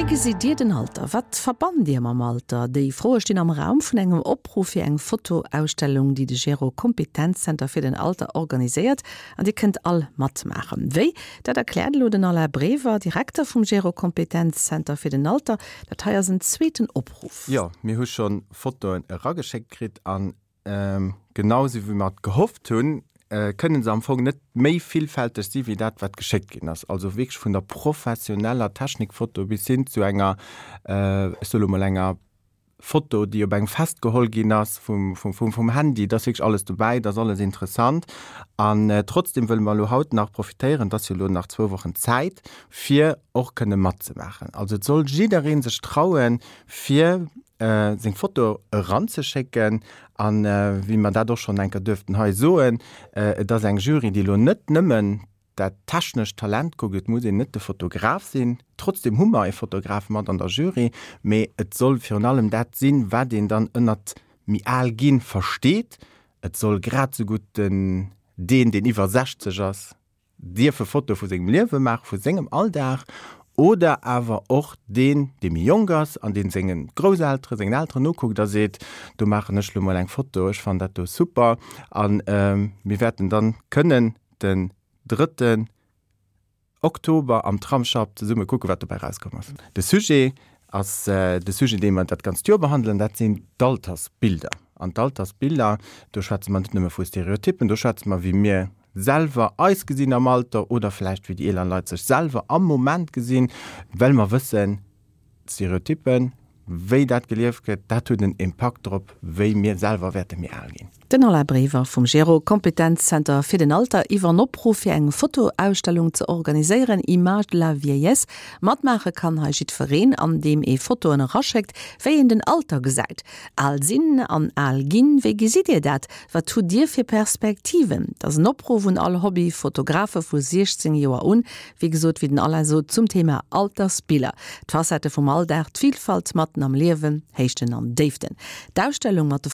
gesitt Dir den Alter? Wat verbannt Dir mam Alter? Déi Froe stinn am Raum vun engem Opruff fir eng Fotoausstellung, déi de Gero Kompetenzzenter fir den Alter organiséiert. An Dir kënnt all matmaachen. Wéi? Dat erkläert elo den Alain Brever, Direkter vum Gero Kompetenzzenter fir den Alter. Dat hei ass en zweeten Opruff. Jo, mir hu scho Fotoen erageschéckt kritt an genau esou wéi mer et gehofft hunn, kënnen se am Fong net méi villfälteg si wéi dat, wat geschéckt ginn ass. Also wierklech vun der professioneller Technikfoto bis hin zu enger, ech soe lo mol enger Foto, déi op engem Fest geholl ginn ass vum Handy. Et ass wierklech alles dobäi, et ass alles interessant. An trotzdem wëlle mer elo haut nach profitéieren, et ass jo elo nach zwou Wochen Zäit, fir och kënne matzemaachen. Also et soll jidderee sech trauen, fir seng Foto eranzeschécken. An wéi mer dat och schonn eng Kéier duerften hei soen, et ass eng Jury, déi elo net nëmmen dat technescht Talent kuckt, et muss een net de Fotograf sinn, trotzdem hu mer e Fotograf mat an der Jury, mee et soll virun allem dat sinn, wat een dann ënnert méi al ginn versteet. Et soll grad esou gutt den deen, deen iwwer 60 ass, dierfe Fotoe vu sengem Liewe maachen, vu sengem Alldag, oder awer och deen, dee méi jonk ass an dee senge Grousselteren, sengen Elteren nokuckt a seet, do maachen ech lo mol eng Foto, ech fannen dat do super. A mir wäerten dann kënnen den drëtten Oktober am Tramsschapp zesumme kucken, wat dobäi erauskomm ass. De Sujet ass de Sujet, dee mer dat ganzt Joer behandelen, dat sinn d'Altersbilder. An d'Altersbilder, do schwätze mer net nëmme vu Stereotyppen, do schwätze mer, wéi mir selwer eis gesinn am Alter oder vläicht wéi déi eeler Leit sech selwer am Moment gesinn, well mer wëssen, D'Stereotyppen, wéi dat gelieft gëtt, dat huet en Impakt drop, wéi mir selwer wäerte méi al ginn. Den Alain Brever vum Gero Kompetenzzenter fir den Alter iwwer en Opruff fir eng Fotoausstellung ze organiséieren, Images de la vieillesse. Matmaache kann hei jiddwereen, an deem ee Fotoen eraschéckt, wéi een den Alter gesäit. Al sinn an al ginn, wéi gesitt Dir dat? Wat hutt Dir fir Perspektiven? Dat ass en Opruff un all Hobby-Fotografe vu 16 Joer un, Wéi gesot, wéi den Alain sot, zum Thema Altersbiller, d'Facettë vum Alldag, d'Vilfalt matten am Liewen, Héichten an Déiften. D'Ausstellung mat de.